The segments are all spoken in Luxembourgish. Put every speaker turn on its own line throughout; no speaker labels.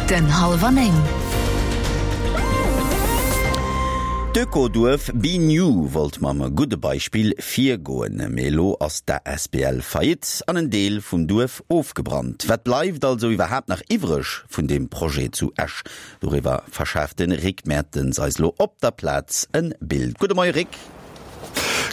Minutten hallwer 9.
D'Ökoduerf Be New wollt mam gudde Beispill virgoen, mee elo ass d'ASBL Faillite an en Deel vum Duerf ofgebrannt. Wat bleift also iwwerhaapt nach iwwreg vun deem Projet zu Esch? Doriwwer verschaaft de Rick Mertens eis elo op der Plaz en Bild. Gudde Moie Rick.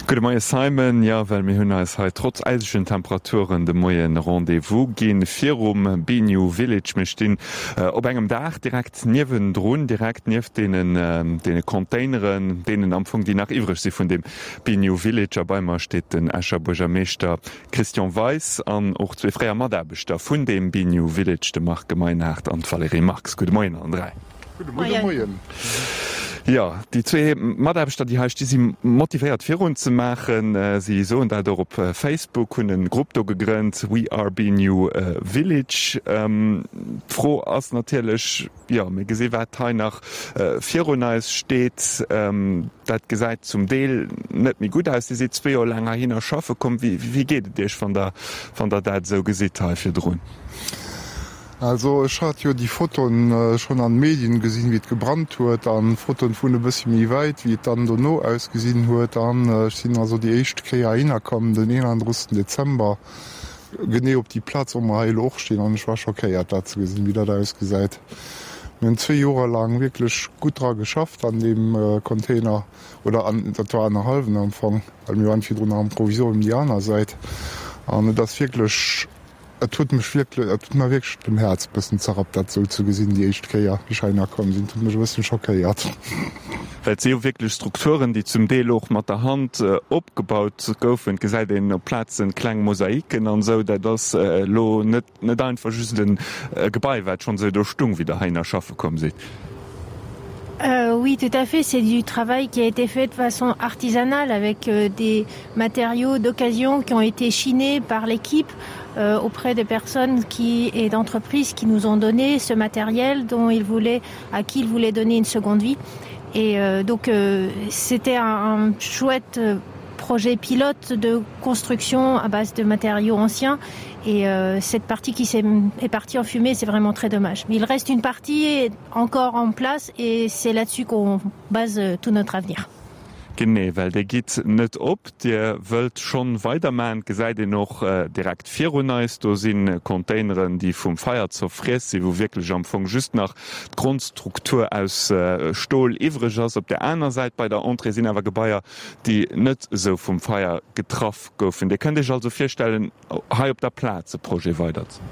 Gudde Moie Simon. Jo, well mir hunn eis hei trotz äisegen Temperaturen de Moie Rendez-vous ginn virum Bignou Village. Mir stinn op engem Daach direkt niewendrun, direkt nieft deenen deene Containeren, deenen am Fong déi nach iwwreg si vun dem Bignou Village. A bei mer steet den Escher Buergermeeschter Christian Weis an och zwee fréier Mataarbechter vun deem Bignou Village, de Marc Gemeinhardt an d'Valérie Marx. Gudde Moien allen 3.
Gudde Moien.
Jo, déi zwee Mataarbechter, déi hei sti si motivéiert virun ze maachen. Si soen dat och op Facebook, hunn e Grupp do gegrënnt, We are Bignou Village. D'Fro ass natierlech, jo, mir gesi wat hei nach virun eis steet, dat gesäit zum Deel net méi gutt aus. Dir sidd zwee Joer laang heihinner schaffe komm. Wéi geet et Iech, wann Der, wann Der dat esou gesitt hei virdrun?
Also ech hat jo déi Fotoen schon an Medien gesinn wéi et gebrannt huet an Fotoen vun e bëssi méi wäit wéi et dann dono ausgesinn huet an ech sinn also déi éischt Kéier heihinner komm den 31 Dezember genee op déi Plaz wou mer hei elo och stinn an ech war schockéiert dat ze gesinn wéi dat ausgesäit. Mir hunn zwee Joer laang wierklech gutt dra geschafft an deem Container oder an dat war annerhallwen am Fong well mir waren virdrun nach am Provisorium déi aner Säit an et ass wierklech Et huet mech wierklech, et huet mer wierklech den Häerz bëssen zerrappt dat esou ze gesinn déi éischt Kéier wéi ech heihinner komm sinn. Et huet mech e bëssen schockéiert.
Well et si jo wierklech Strukturen, déi zum Deel och mat der Hand opgebaut goufen. Et gesäit een op Plazen kleng Mosaiken an esou. Dat ass elo net net einfach just e Gebai, wat schonn esou do stung, wéi Der heihinner schaffe komm sidd.
Oui, tout à fait, c'est du travail qui a été fait de façon artisanale avec des matériaux d'occasion qui ont été chinés par l'équipe euh, auprès des personnes qui et d'entreprises qui nous ont donné ce matériel dont ils voulaient à qui ils voulaient donner une seconde vie et euh, donc euh, c'était un, un chouette euh, projet pilote de construction à base de matériaux anciens et euh, cette partie qui est, est partie en fumée c'est vraiment très dommage mais il reste une partie encore en place et c'est là dessus qu'on base euh, tout notre avenir.
Genee, well Dir gitt net op, Dir wëllt schonn weidermachen. Et gesäit een och direkt virun eis, do si Containeren, déi vum Feier zerfriess sinn, wou wierklech am Fong just nach d'Grondstruktur aus Stol iwwreg ass. Op där aner Säit bei der Entrée sinn awer Gebaier, déi net esou vum Feier getraff goufen. Dir kënnt Iech also virstellen, hei op der Plaz e Projet weider ze.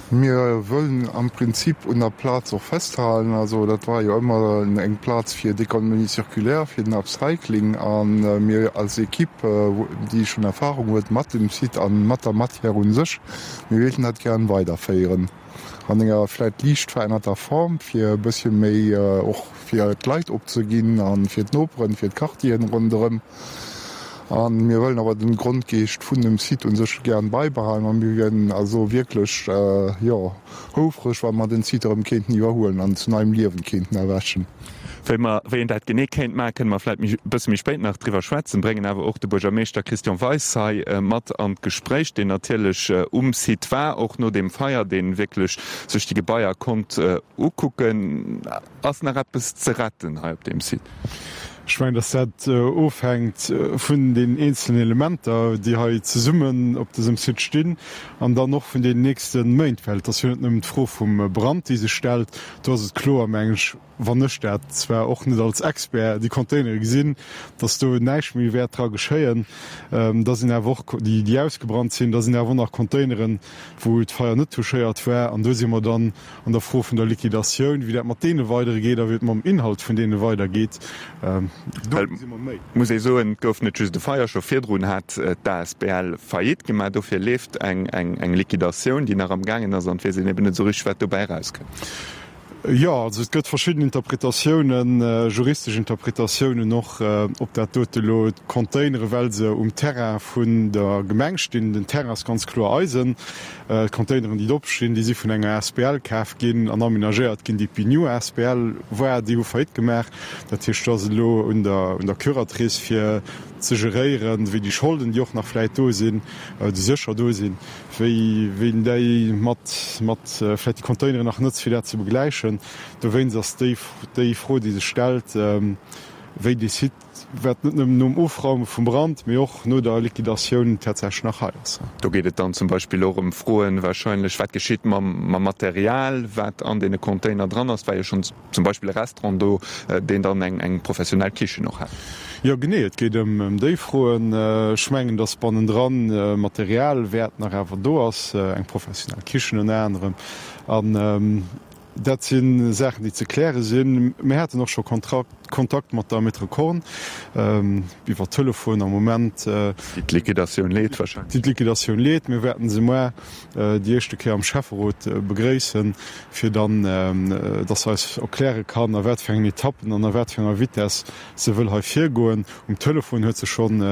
Mir wëllen am Prinzip un der Plaz och festhalen. Also dat war jo ëmmer eng Plaz fir d'Économie circulaire, fir den Upcycling. A mir als Equipe, déi schonn Erfahrung huet mat dem Site a mat der Matière u sech, mir wéilten dat gären weiderféieren an enger vläicht liicht verännerter Form, fir e bëssche méi och fir d'Leit opzeginn a fir d'Noperen, fir d'Quartieren ronderëm. A mir wëllen awer den Grondgeescht vun dem Site un sech gären beibehalen a mir wieren also wierklech, jo, houfreg, wa mer den Site erëm kéinten iwwerhuelen an zu neiem Liewen kéinten erwächen.
Wéi mer, wéi een dat genee kéint maachen, kënne mer vläicht méi, e bësse méi spéit nach driwwer schwätzen, bréngen awer och de Buergermeeschter Christian Weis hei mat an d'Gespréich, deen natierlech um Site war, och no deem Feier, dee wierklech sech déi Gebaier konnt ukucken. Ass nach eppes ze retten hei op deem Site?
Ech mengen, dass dat ofhänkt vun den eenzelnen Elementer, déi hei zesummen op dësem Site stinn, an dann och vun den nächste Méint, well et ass jo net nëmmen d'Fro vum Brand, déi sech stellt. Do ass et kloer, mengen ech, wann ech dat zwar och net als Expert, déi Containere gesinn, dass do näischt méi wäert dra geschéien. Da sinn awer och déi, déi ausgebrannt sinn, da sinn awer och nach Containeren, wou d'Feier net touchéiert war. An do si mer dann An der Fro vun der Liquidatioun, wéi dat mat deene weidere geet a wéi et mam Inhalt vun deene weidergeet, do gesi mer méi.
Muss ee soen, et gouf net just e Feier, scho virdrun hat d'ASBL Faillite gemaach. Dofir leeft eng Liquidatioun, déi nach am gaangen ass, an et weess een eben net esou richteg, wat dobäi erauskënnt.
Jo, also et gëtt verschidden Interpretatiounen, juristesch Interpretatiounen och, ob dat dote elo d'Containere, well se um Terrain vun der Gemeng stinn, den Terrain ass ganz kloer eisen, D'Containeren, déi drop stinn, déi si vun enger asbl kaf ginn an amenagéiert ginn, déi d'Bignou asbl war. Déi hu Faillite gemaach. Dat heescht, do ass et elo un der, un der Curatrice, fir ze geréieren, wéi déi Scholden, déi och nach vläit do sinn, déi sécher do sinn, wéi een déi mat mat vläicht déi Containeren nach nëtzt, fir dat ze begläichen. Dowéinst ass déi déi Fro, déi sech stellt, wéi dee Site, wat net nëmmen nom Ofraume vum Brand, mee och no der Liquidatioun tatsächlech nach hei ass.
Do geet et dann zum Beispill och ëm Froen wahrscheinlech, wat geschitt mam Material, wat an deene Container dran ass. Et war jo schonn zum Beispill e Restaurant do, deen dann eng professionell Kichen och hat.
Jo, genee, et geet ëm déi Froen. Ech mengen, datt bannendran Material wäert nach awer do ass, eng professionell Kichen ënner anerem. An Dat si Saachen, déi ze kläre sinn. Mir haten och scho Kontakt mat der Maître Korn iwwer Telefon am Moment.
Déi d'Liquidatioun leet wahrscheinlech.
Déi d'Liquidatioun leet. Mir wäerten se muer déi éischte Kéier am Schäfferot begréissen, fir dann, dass se eis erkläre kann, a wat fir engen Etappen an a wat fir enger Vitess se wëll hei virgoen. Um Telefon huet se schonn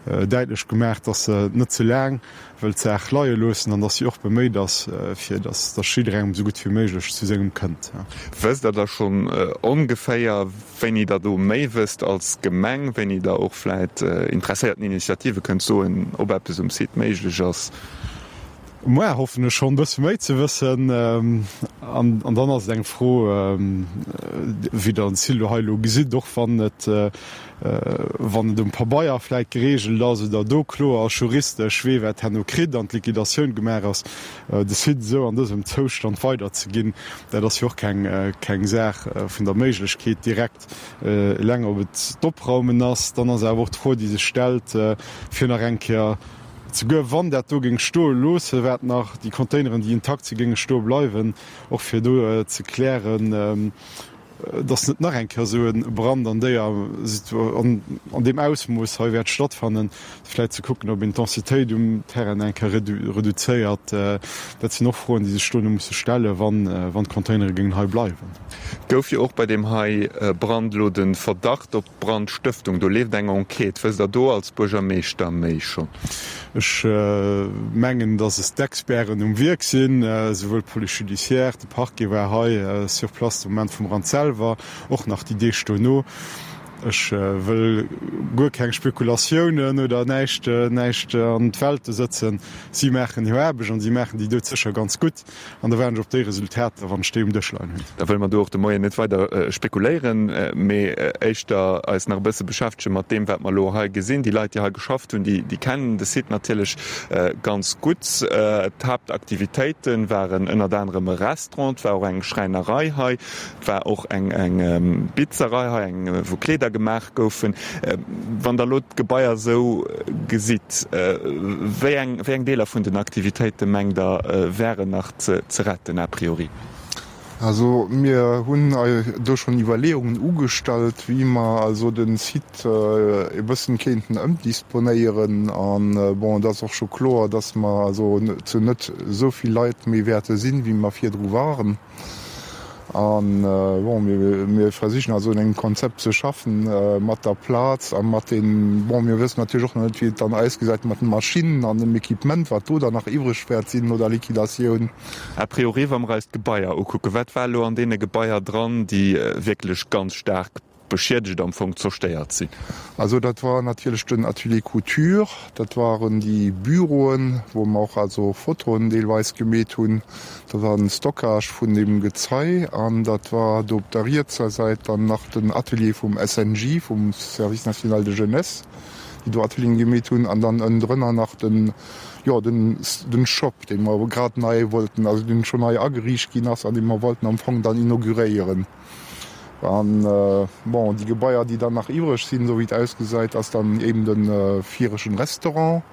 däitlech gemaach, dass se net ze laang wëll d'Saach leie loossen an dass si och beméit ass, fir dass dass jidderengem esou gutt wéi méiglech zu sengem kënnt.
Wësst Der da schonn ongeféier, wéini Der do méi wësst als Gemeng, wéini Der och vläit interesséierten Initiative kënnt soen, ob eppes um Site méiglech ass?
Muer hoffen ech schonn e bësse méi ze wëssen. An dann ass et eng Fro, wéi Der den Silo hei elo gesitt, och wann et wann et um Pabeier vläit geregelt ass oder do kloer ass juristesch, wee wat herno kritt an d'Liquidatioun gemaach ass, de Site esou an dësem Zoustand weiderzeginn, dat ass jo och keng keng Saach vun der Méiglechkeet direkt. Eleng ob et d'Opraumen ass, dann ass awer och d'Fro, déi sech stellt, fir nach eng Kéier, souguer wann dat do géing stoe loosse, wat nach déi Containeren, déi intakt si géinge stoe bleiwen, och fir do ze klären, dass net nach eng Kéier esou e Brand an déier an deem Ausmooss hei wäert stattfannen, vläicht ze kucken, ob een d'Densitéit um Terrain eng Kéier reduzéiert. Dat sinn och Froen, déi sech dono musse stellen, wann d'Containere géingen hei bleiwen.
Gouf jo och bei deem hei Brand elo de Verdacht op Brandstëftung, do leeft eng Enquête. Wësst Der do als Buergermeeschter méi schonn?
Ech mengen, dass es d'Experten um Wierk sinn, esouwuel d'Police judiciaire, de Parquet war hei sur place de Moment vum Brand selwer, och nach déi Deeg dono. Ech wëll guer keng Spekulatiounen oder näischt, näischt an d'Welte sëtzen. Si maachen hir Aarbecht an si maachen déi doudsécher ganz gutt. An da waarden ech op déi Resultater, wann ech déi um Dësch leien hunn.
Da wëlle mer do och de Moien net weider spekuléieren, mee éischter eis nach e bësse beschäftege mat deem, wat mer elo hei gesinn. Déi Leit, déi hei geschafft hunn, déi kennen de Site natierlech ganz gutt. D'Haaptaktivitéite waren ënnert anerem e Restaurant, et war och eng Schräinerei hei, Et war och eng Bitzerei hei, eng wou Kleeder gemaach goufen. Wann Der elo d'Gebaier esou gesitt, wéi eng, wéi eng Deeler vun den Aktivitéite mengt Der wären nach ze retten a priori?
Also mir hunn do schonn Iwwerleeungen ugestallt, wéi mer also de Site e bëssen kéinten ëmdisponéieren. An bon, et ass och scho kloer, dass mer also zu net esou vill Leit méi wäerte sinn, wéi mer virdru waren. An bon, mir versichen also un engem Konzept ze schaffen mat der Plaz a mat den, bon, mir wëssen natierlech och nach net, wéi et dann ausgesäit mat den Maschinnen an dem Equipement, wat do dann nach iwwreg wäert sinn no der Liquidatioun.
A priori, wa mer eis d'Gebaier ukucken, wat war elo an deene Gebaier dran, déi wierklech ganz staark beschiedegt, am Fong zerstéiert sinn?
Also dat war natierlech den Atelier Couture, dat waren déi Büroen, wou mer och also Fotoen deelweis gemeet hunn, dat war den Stockage vun deem Gezei an dat war do op der rietser Säit dann nach den Atelier vum SNJ, vum Service national de jeunesse, déi do Atelieren gemeet hunn an dann ënnendrënner nach den, jo, den, den Shop, dee mer grad nei wollten, also deen schonn nei ageriicht ginn ass an dee mer wollten am Fong dann inauguréieren. An, bon, déi Gebaier, déi dann nach iwwreg sinn, esou wéi et ausgesäit, ass dann eben de viregten Restaurant,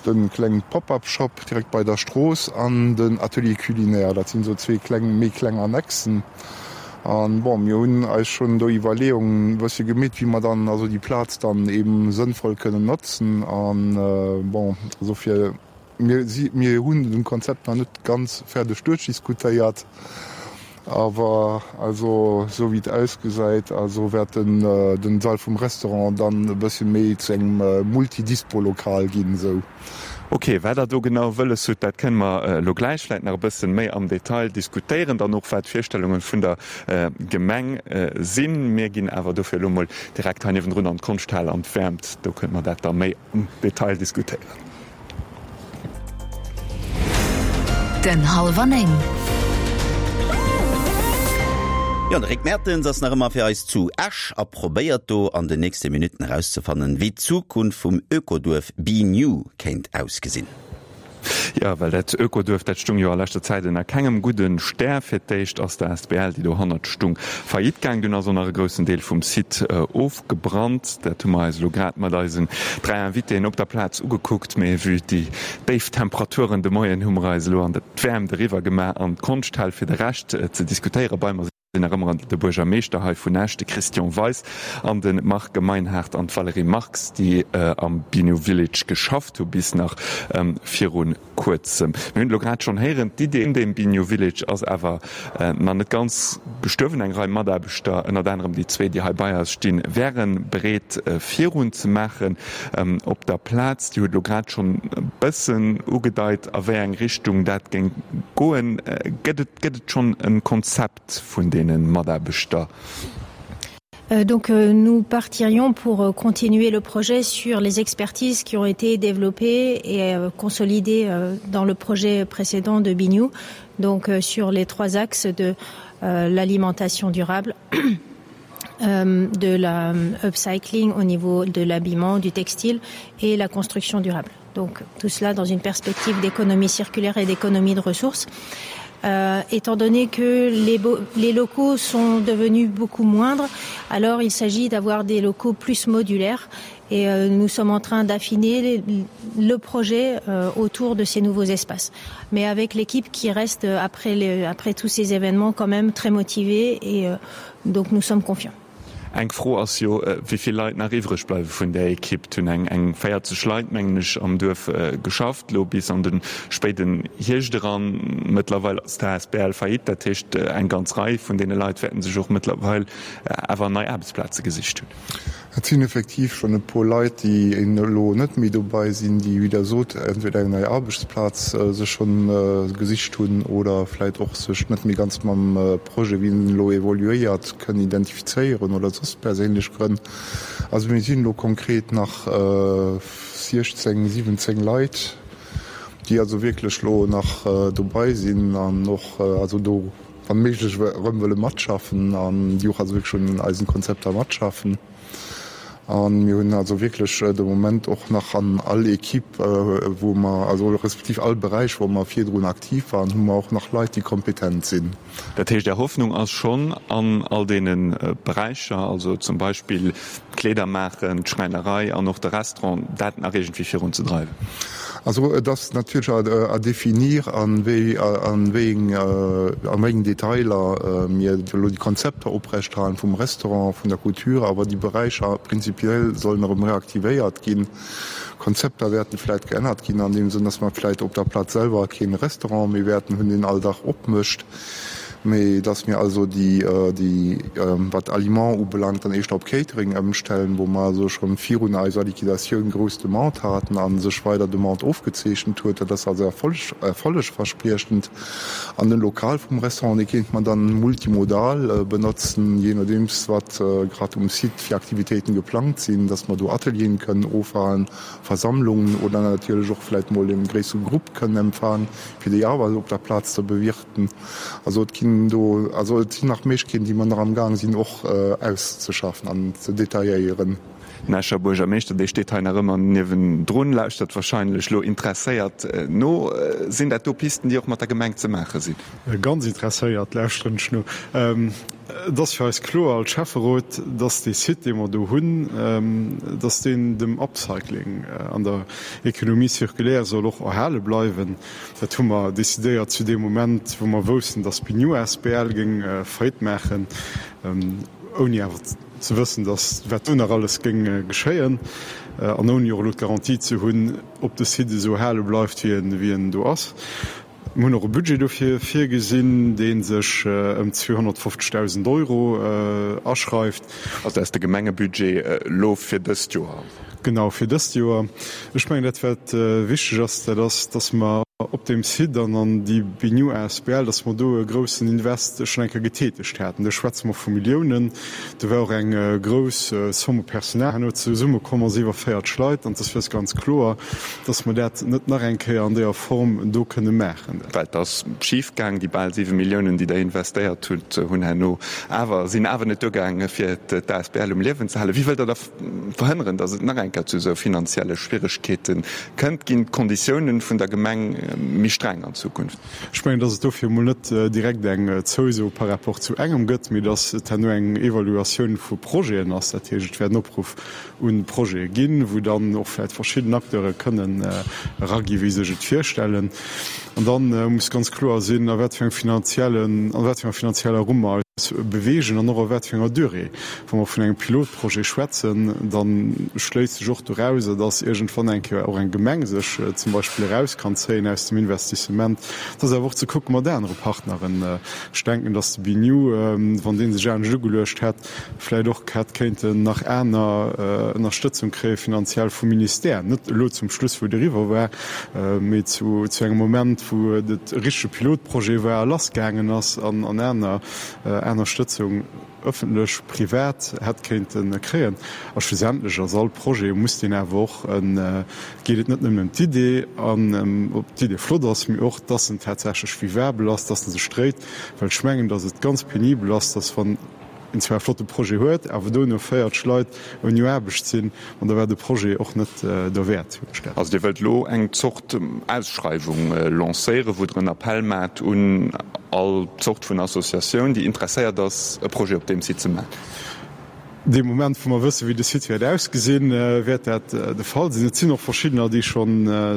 de kleng Pop-up-Shop direkt bei der Strooss an den Atelier culinaire. Dat sinn esou zwee kleng, méi kleng Annexen. An, bon, mir hunn eis schonn do Iwwerleeungen e bëssche gemeet, wéi mer dann also déi Plaz dann eben sënnvoll kënnen notzen. An, bon, also fir. Mir si, mir hunn den Konzept nach net ganz fäerdeg duerchdiskutéiert, awer also esou wéi et ausgesäit, also wäert den den Sall vum Restaurant dann e bëssche méi zu engem Multidispo-Lokal ginn esou.
Ok, wat Der do genau wëlles hutt, dat kënne mer elo gläich vläicht nach e bëssen méi am Detail diskutéieren, dann och wat d'Virstellunge vun der Gemeng sinn. Mir ginn awer dofir elo mol direkt hei niewendrun an d'Konschthal an d'Wäermt, do kënne mer dat da méi am Detail diskutéieren.
Minutten hallwer 9. Jo, de Rick Mertens ass nach ëmmer fir eis zu Esch a probéiert do an den nächste Minutten erauszefannen, wéi d'Zukunft vum Ökoduerf Be New kéint ausgesinn.
Jo, well dat Ökoduerf, dat stung jo a leschter Zäit ënner kengem gudde Stär. Fir d'éischt ass d'ASBL, déi dohannert stung, faillite gaang. Dunn ass och nach e groussen Deel vum Site ofgebrannt. Dat hu mer eis elo grad mat eisen 3 Invitéen op der Plaz ugekuckt. Mee vue déi déif Temperaturen de Moien hu mer eis elo an d'Wäermt eriwwer gemaach an d'Konschthal fir de Rescht ze diskutéieren. Bei mer sinn nach ëmmer de Buergermeeschter hei vun Esch, de Christian Weis, an de Marc Meinhard an d'Valérie Marx, déi am Binu Village geschafft hu bis nach viru Kuerzem. Mir hunn et elo grad schonn héieren, d'Idee vun deem Binu Village ass awer nach net ganz gestuerwen. Eng Rei Mataarbechter, ënnert anerem déi zwee, déi hei bei eis stinn, wäre bereet virun ze maachen op der Plaz. Dir hutt elo grad schonn e bëssen ugedeit, a wéi eng Richtung dat géing goen. Gëtt et Gëtt et schonn e Konzept vun deene Mataarbechter?
Donc nous partirions pour continuer le projet sur les expertises qui ont été développées et consolidées dans le projet précédent de Bignou, donc sur les trois axes de l'alimentation durable, de la upcycling au niveau de l'habillement, du textile et la construction durable. Donc tout cela dans une perspective d'économie circulaire et d'économie de ressources. Euh, étant donné que les, les locaux sont devenus beaucoup moindres, alors il s'agit d'avoir des locaux plus modulaires et euh, nous sommes en train d'affiner le projet euh, autour de ces nouveaux espaces. Mais avec l'équipe qui reste euh, après, les, après tous ces événements quand même très motivée et euh, donc nous sommes confiants.
Eng Fro ass jo, wéi vill Leit nach iwwreg bleiwe vun där Ekipp. Et hunn eng eng 40 Leit, mengen ech, am Duerf geschafft, elo bis an de spéiden Hierscht eran. Mëttlerweil ass d'ASBL faillite, dat heescht, eng ganz Rei vun deene Leit wäerten sech och mëttlerweil awer nei Aarbechtsplaze gesicht hunn.
Et sinn effektiv schonn e puer Leit, déi elo net méi dobei sinn, déi, wéi Der sot, entweder eng nei Aarbechtsplaz sech schonn gesicht hunn oder vläicht och sech net méi ganz mam Projet, wéi en elo evoluéiert, kënnen identifizéieren oder soss perséinlech Grënn. Also mir sinn elo konkret nach 16, 17 Leit, déi also wierklech elo nach dobei sinn an och also do wann méiglech erëm wëlle matschaffen an déi och also wierklech un eisen Konzepter matschaffen. A mir hunn also wierklech de Moment och nach an all Equipe, wou mer, also respektiv all Beräich, wou mer virdrun aktiv waren, hu mer och nach Leit, déi kompetent sinn.
Dat heescht, Är Hoffnung ass schonn an all deene Beräicher, also zum Beispill d'Kleeder maachen, d'Schräinerei an och de Restaurant, dat nach iergendwéi virunzedreiwen?
Also et ass natierlech à définir, a wéi engen Detailer mir elo déi Konzepter oprechterhalen vum Restaurant, vun der Couture, awer déi Beräicher prinzipiell sollen erëm reaktivéiert ginn. Konzepter wäerten vläit geännert ginn an deem Sënn, dass mer vläit op der Plaz selwer kee Restaurant méi wäerten hunn, deen all Dag opmécht. Mee dass mir also déi, déi, wat Aliments ubelaangt, dann éischter op Catering ëmstellen, wou mer also scho virun eiser Liquidatioun grouss Demande haten a sech weider Demande ofgezeechent huet. Dat ass also erfolleg, erfollegverspriechend. An den Lokal vum Restaurant, dee kéint mer dann multimodal benotzen, jee nodeems wat grad um Site fir Aktivitéiten geplangt sinn, dass mer do Atelieren kënnen ofhalen, Versammlungen oder natierlech och vläit mol e gréissere Grupp kënnen empfaangen, fir déi awer op der Plaz ze bewirten. Also et ginn do, also et sinn nach Méiglechkeeten, déi mer nach amgaang sinn och auszeschaffen an ze detailléieren.
Den Escher Buergermeeschter, dee steet hei nach ëmmer niewendrun, lauschtert wahrscheinlech elo interesséiert no. Sinn dat do Pisten, déi och mat der Gemeng ze maache sinn?
Ganz interesséiert lauschteren ech no. Et ass fir eis kloer als Schäfferot, dass dee Site, dee mer do hunn, dass deen dem Upcycling an der Économie circulaire soll och erhale bleiwen. Dat hu mer decidéiert zu deem Moment, wou mer woussten, dass d'Bignou asbl géing Faillite maachen, ouni awer ze wëssen, dass wat do nach alles géing geschéien an ouni och elo d'Garantie ze hunn, ob de Site esou erhale bleift, wéi en do ass. Mir hunn och e Budget dofir virgesinn, dee sech ëm 250.000 Euro aschreift.
Also dat ass de Gemengebudget elo fir dëst Joer?
Genau, fir dëst Joer. Ech mengen, dat wat wichteg ass, dat ass, dass mer. Op deem Site an an déi Bignou asbl, dass mer do e groussen Invest schonn eng Kéier getätegt haten. Do schwätze mer vu Milliounen. Do war och eng grouss Somme u Personal herno zesummekomm, also iwwer 40 Leit. An et ass fir eis ganz kloer, dass mer dat net nach eng Kéier an deeër Form do kënne maachen.
Well et ass schif gaang. Déi bal 7 Milliounen, déi Der investéiert hutt, hunn herno awer, sinn awer net duergaange fir d'asbl um Liewen ze halen. Wéi wëllt Der da verhënneren, datt et nach eng Kéier zu esou finanzielle Schwieregkeete kënnt? Ginn d'Konditiounen vun der Gemeng méi streng an Zukunft?
Ech mengen, datt et dofir emol net direkt eng Zouso par rapport zu engem gëtt, mee datt et herno eng Evaluatioun vu Projeten ass. Dat heescht, et wäert en Opruff u Projete ginn, wou dann och vläicht verschidden Acteure kënnen eragi wéi sech et virstellen. An da muss ganz kloer sinn, a wat fir engem finanziellen, a wat fir enger finanzieller Rumm mer eis beweegen an och a wat fir enger Durée. Wa mer vun engem Pilotprojet schwätzen, da schléisst sech och dorauser, dass iergendwann eng Kéier och eng Gemeng sech zum Beispill eraus kann zéien aus dem Investissement. Et ass awer och ze kucke mat anere Partneren. Ech denken, dass de BINEW, wann dee sech anescht ugeluecht hätt, vläicht och hätt kéinten nach aner Ënnerstëtzung kréie finanziell vum Ministère, net elo zum Schluss, wou et eriwwer war, mee zu engem Moment, wou et e richtege Pilotprojet war a lassgaangen ass an aner Ënnerstëtzung. ëffentlech, privat, hätt kéinte kréien. A schlussendlech ass all Projet, muss deen awer och, geet et net nëmmen ëm d'Idee an ob d'Idee flott ass, mee och, dass en tatsächlech vivabel ass, dass en sech dréit. Well ech mengen, dass et ganz penibel ass, dass wann een zwar e flotte Projet huet, awer dono 40 Leit ouni Aarbecht sinn, an da war de Projet och net derwäert.
Also Dir wëllt elo eng Zort Ausschreiwung lancéieren, wou Der en Appell maacht un all Zort vun Associatioun, déi interesséiert ass, e Projet op deem Site ze maachen?
Dee Moment, wou mer wëssen, wéi de Site wäert ausgesinn, wäert dat de Fall sinn. Et sinn och verschiddener, déi scho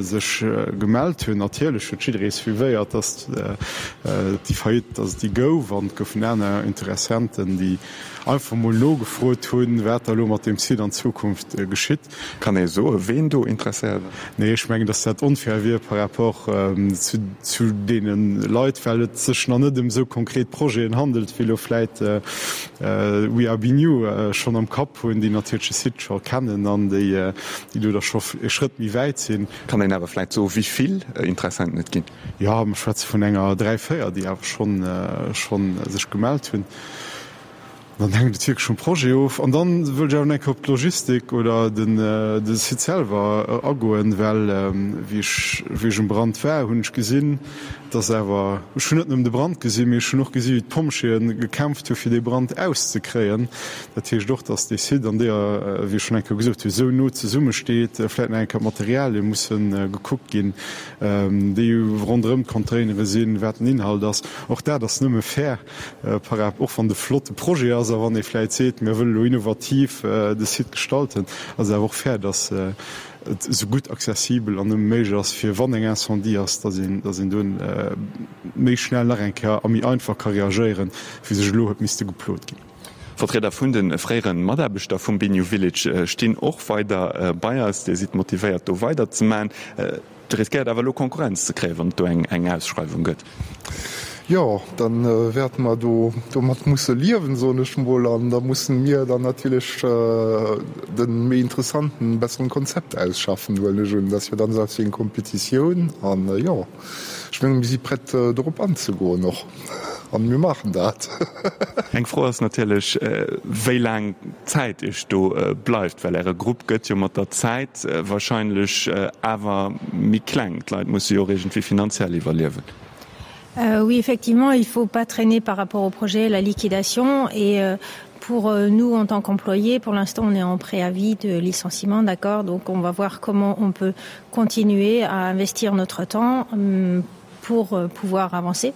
sech gemellt hunn. Natierlech huet jidderee suivéiert, datt déi Faillite, datt et déi gouf, an et goufen aner Interessenten, déi einfach mol nogefrot hunn, wat da elo mat deem Site an Zukunft geschitt.
Kann ee soen, ween do interesséiert ass?
Nee, ech mengen, datt dat onfair wier par rapport zu deene Leit, well et sech nach net ëm esou konkret Projeten handelt, wéi elo vläit We Are Bignou schonn am Kapp hunn, déi natierlech de Site scho kennen an déi do da scho e Schrëtt méi wäit sinn.
Kann een awer vläit soen, wéi vill Interessenten et ginn?
Jo, mer schwätze vun enger 3, 4, déi awer schonn sech gemellt hunn. Dann hänkt et wierklech vum Projet of. An dann wëll ech awer nach eng Kéier op d'Logistik oder den de Site selwer agoen, well wéi ech wéi ech um Brand war, hunn ech gesinn, dass awer, ech hunn net nëmmen de Brand gesinn, mee ech hunn och gesi wéi d'Pompjeeë gekämpft hu fir dee Brand auszekréien. Dat heescht och, dass dee Site an deeër, wéi ech schonn eng Kéier gesot hunn, esou no zesummesteet, vläicht nach eng Kéier d'Materialie musse gekuckt ginn, déi ronderëm d'Containere sinn, wat den Inhalt ass. Och dat ass nëmme fair. Par rap. Och wann et e flotte Projet ass a wann ee vläit seet, mir wëlle lo innovativ de Site gestalten, ass et awer och fair, dass et esou gutt accessibel an nëmme méiglech ass, fir wann eng Incendie ass, dass een, dass een do méi schnell nach eng Kéier a méi einfach ka reagéieren, wéi sech elo huet misste geplot ginn.
Vertrieder vun de fréiere Mataarbechter vum Bignou Village stinn och weider bei eis. Dir sidd motivéiert do weider ze maachen. Dir riskéiert awer elo Konkurrenz ze kréien, wann et do eng Ausschreiwung gëtt.
Jo, da wäerte mer do domat musse liewen, soen ech mol. An da mussen mir dann natierlech de méi interessanten, besseren Konzept ausschaffen, huelen ech un. Dat ass jo dann esou eppes wéi eng Kompetitioun. An jo, ech mengen, mir si prett dorop anzegoen och. An mir maachen dat.
Eng Fro ass natierlech, wéi laang Zäit Iech do bleift, well Äre Grupp gëtt jo mat der Zäit wahrscheinlech awer méi kleng. D'Leit musse jo och iergendwéi finanziell iwwerliewen.
Oui, effectivement, il faut pas traîner par rapport au projet la liquidation et pour nous en tant qu'employés, pour l'instant on est en préavis de licenciement, d'accord, donc on va voir comment on peut continuer à investir notre temps pour pouvoir avancer.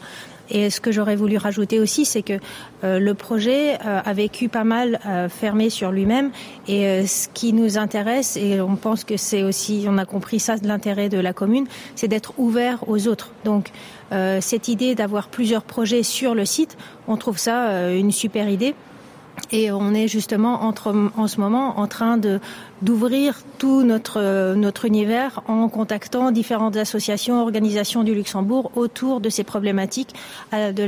Et ce que j'aurais voulu rajouter aussi, c'est que euh, le projet euh, a vécu pas mal euh, fermé sur lui-même et euh, ce qui nous intéresse et on pense que c'est aussi on a compris ça de l'intérêt de la commune, c'est d'être ouvert aux autres. Donc euh, cette idée d'avoir plusieurs projets sur le site, on trouve ça euh, une super idée et on est justement entre, en ce moment en train de d'ouvrir tout notre notre univers en contactant différentes associations organisations du Luxembourg autour de ces problématiques euh, de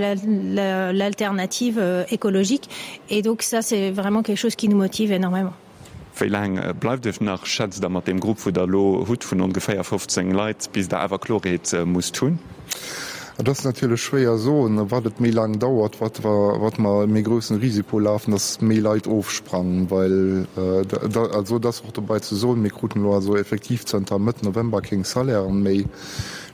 l'alternative la, la, euh, écologique et donc ça c'est vraiment quelque chose qui nous motive énormément.
Wéi laang bleift Iech nach, schätzt Der, mat deem Grupp, wou Der elo hutt vun ongeféier 15 Leit, bis Der awer Klorheet musst hunn?
Et ass natierlech schwéier soen, wat et méi laang dauert, wat wat mer e méi groussen Risiko lafen, dass méi Leit ofsprangen, well also et ass och dobei ze soen, mir kruten elo also effektiv zënter Mëtt November keng Salairen méi.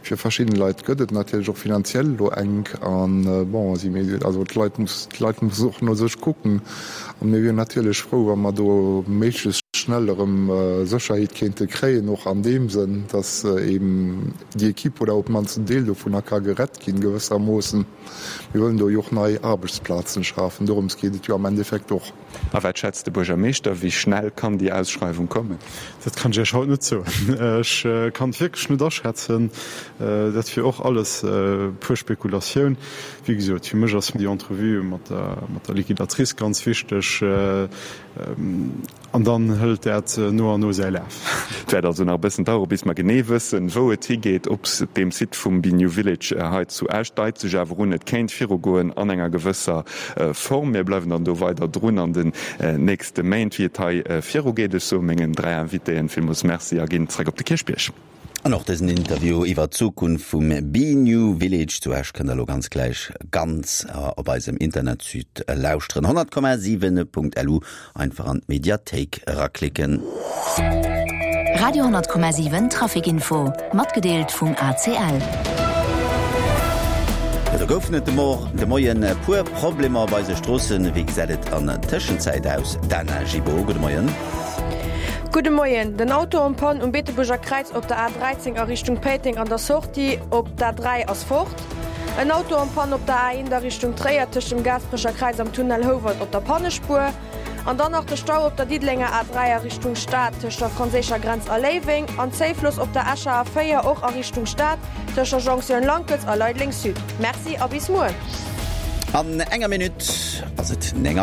Fir verschidden Leit gëtt et natierlech och finanziell elo enk an bon, si mir also d'Leit muss d'Leit mussen och no sech kucken an mir wieren natierlech frou, wa mer do méiglechst schnell erëm Sécherheet kéinte kréien, och an deem Sënn, dass eben déi Equipe oder op d'mannst en Deel dovunner ka gerett ginn gewëssermoossen. Mir wëllen do jo och nei Aarbechtsplazen schafen, dorëms geet et jo am Endeffekt och.
A wat schätzt de Buergermeeschter, wéi schnell kann déi Ausschreiwung kommen?
Dat kann ech Iech haut net soen. Ech kann et wierklech net aschätzen. Dat wier och alles puer Spekulatioun. Wéi gesot, fir mech ass déi Entrevue mat der Liquidatrice ganz wichteg. An dann hëlt dat no an no säi Laf.
Et wäert also nach e bëssen dauere bis mer genee wëssen, wou et higeet. Op deem Site vum Be New Village hei zu Esch deit sech awer un, et kéint virugoen an enger gewësser Form. Mir bleiwen dann do weider drun an den nächste Méint, wéi et hei virugeet. Ech soe mengen 3 Invitéen villmools Merci a ginn zréck op de Kierchbierg.
An och dësen Interview iwwer d'Zukunft vum Be New Village zu Esch kënnt der elo ganz gläich ganz op eisem Internetsite lauschteren. 100,7.lu, einfach an d'Mediathéik eraklicken.
Radio 10,7 Traficinfo, matgedeelt vum ACL.
Jo, do goufen et de Moien e puer Problemer op eise Stroossen. Wéi gesäit et an Tëschenzäit aus? Dana Gibeault, gudde Moien.
Gudde Moien. Den Auto en panne um Beetebuerger Kräiz op der A 13 a Richtung Péiteng an der Sortie op d'A 3 ass fort. En Auto en panne op der A 1 a Richtung Tréier tëscht dem Gaasperecher Kräiz am Tunnel Houwald op der Pannespuer. An dann nach de Stau op der Diddelenger A 3 a Richtung Stad tëscht der franséischer Grenz a Léiweng an Zéifloss op der Escher A 4 och a Richtung Stad tëscht der Jonktioun Lankels a Leideleng Sud. Merci a bis muer.
An enger Minutt ass et 9 Auer.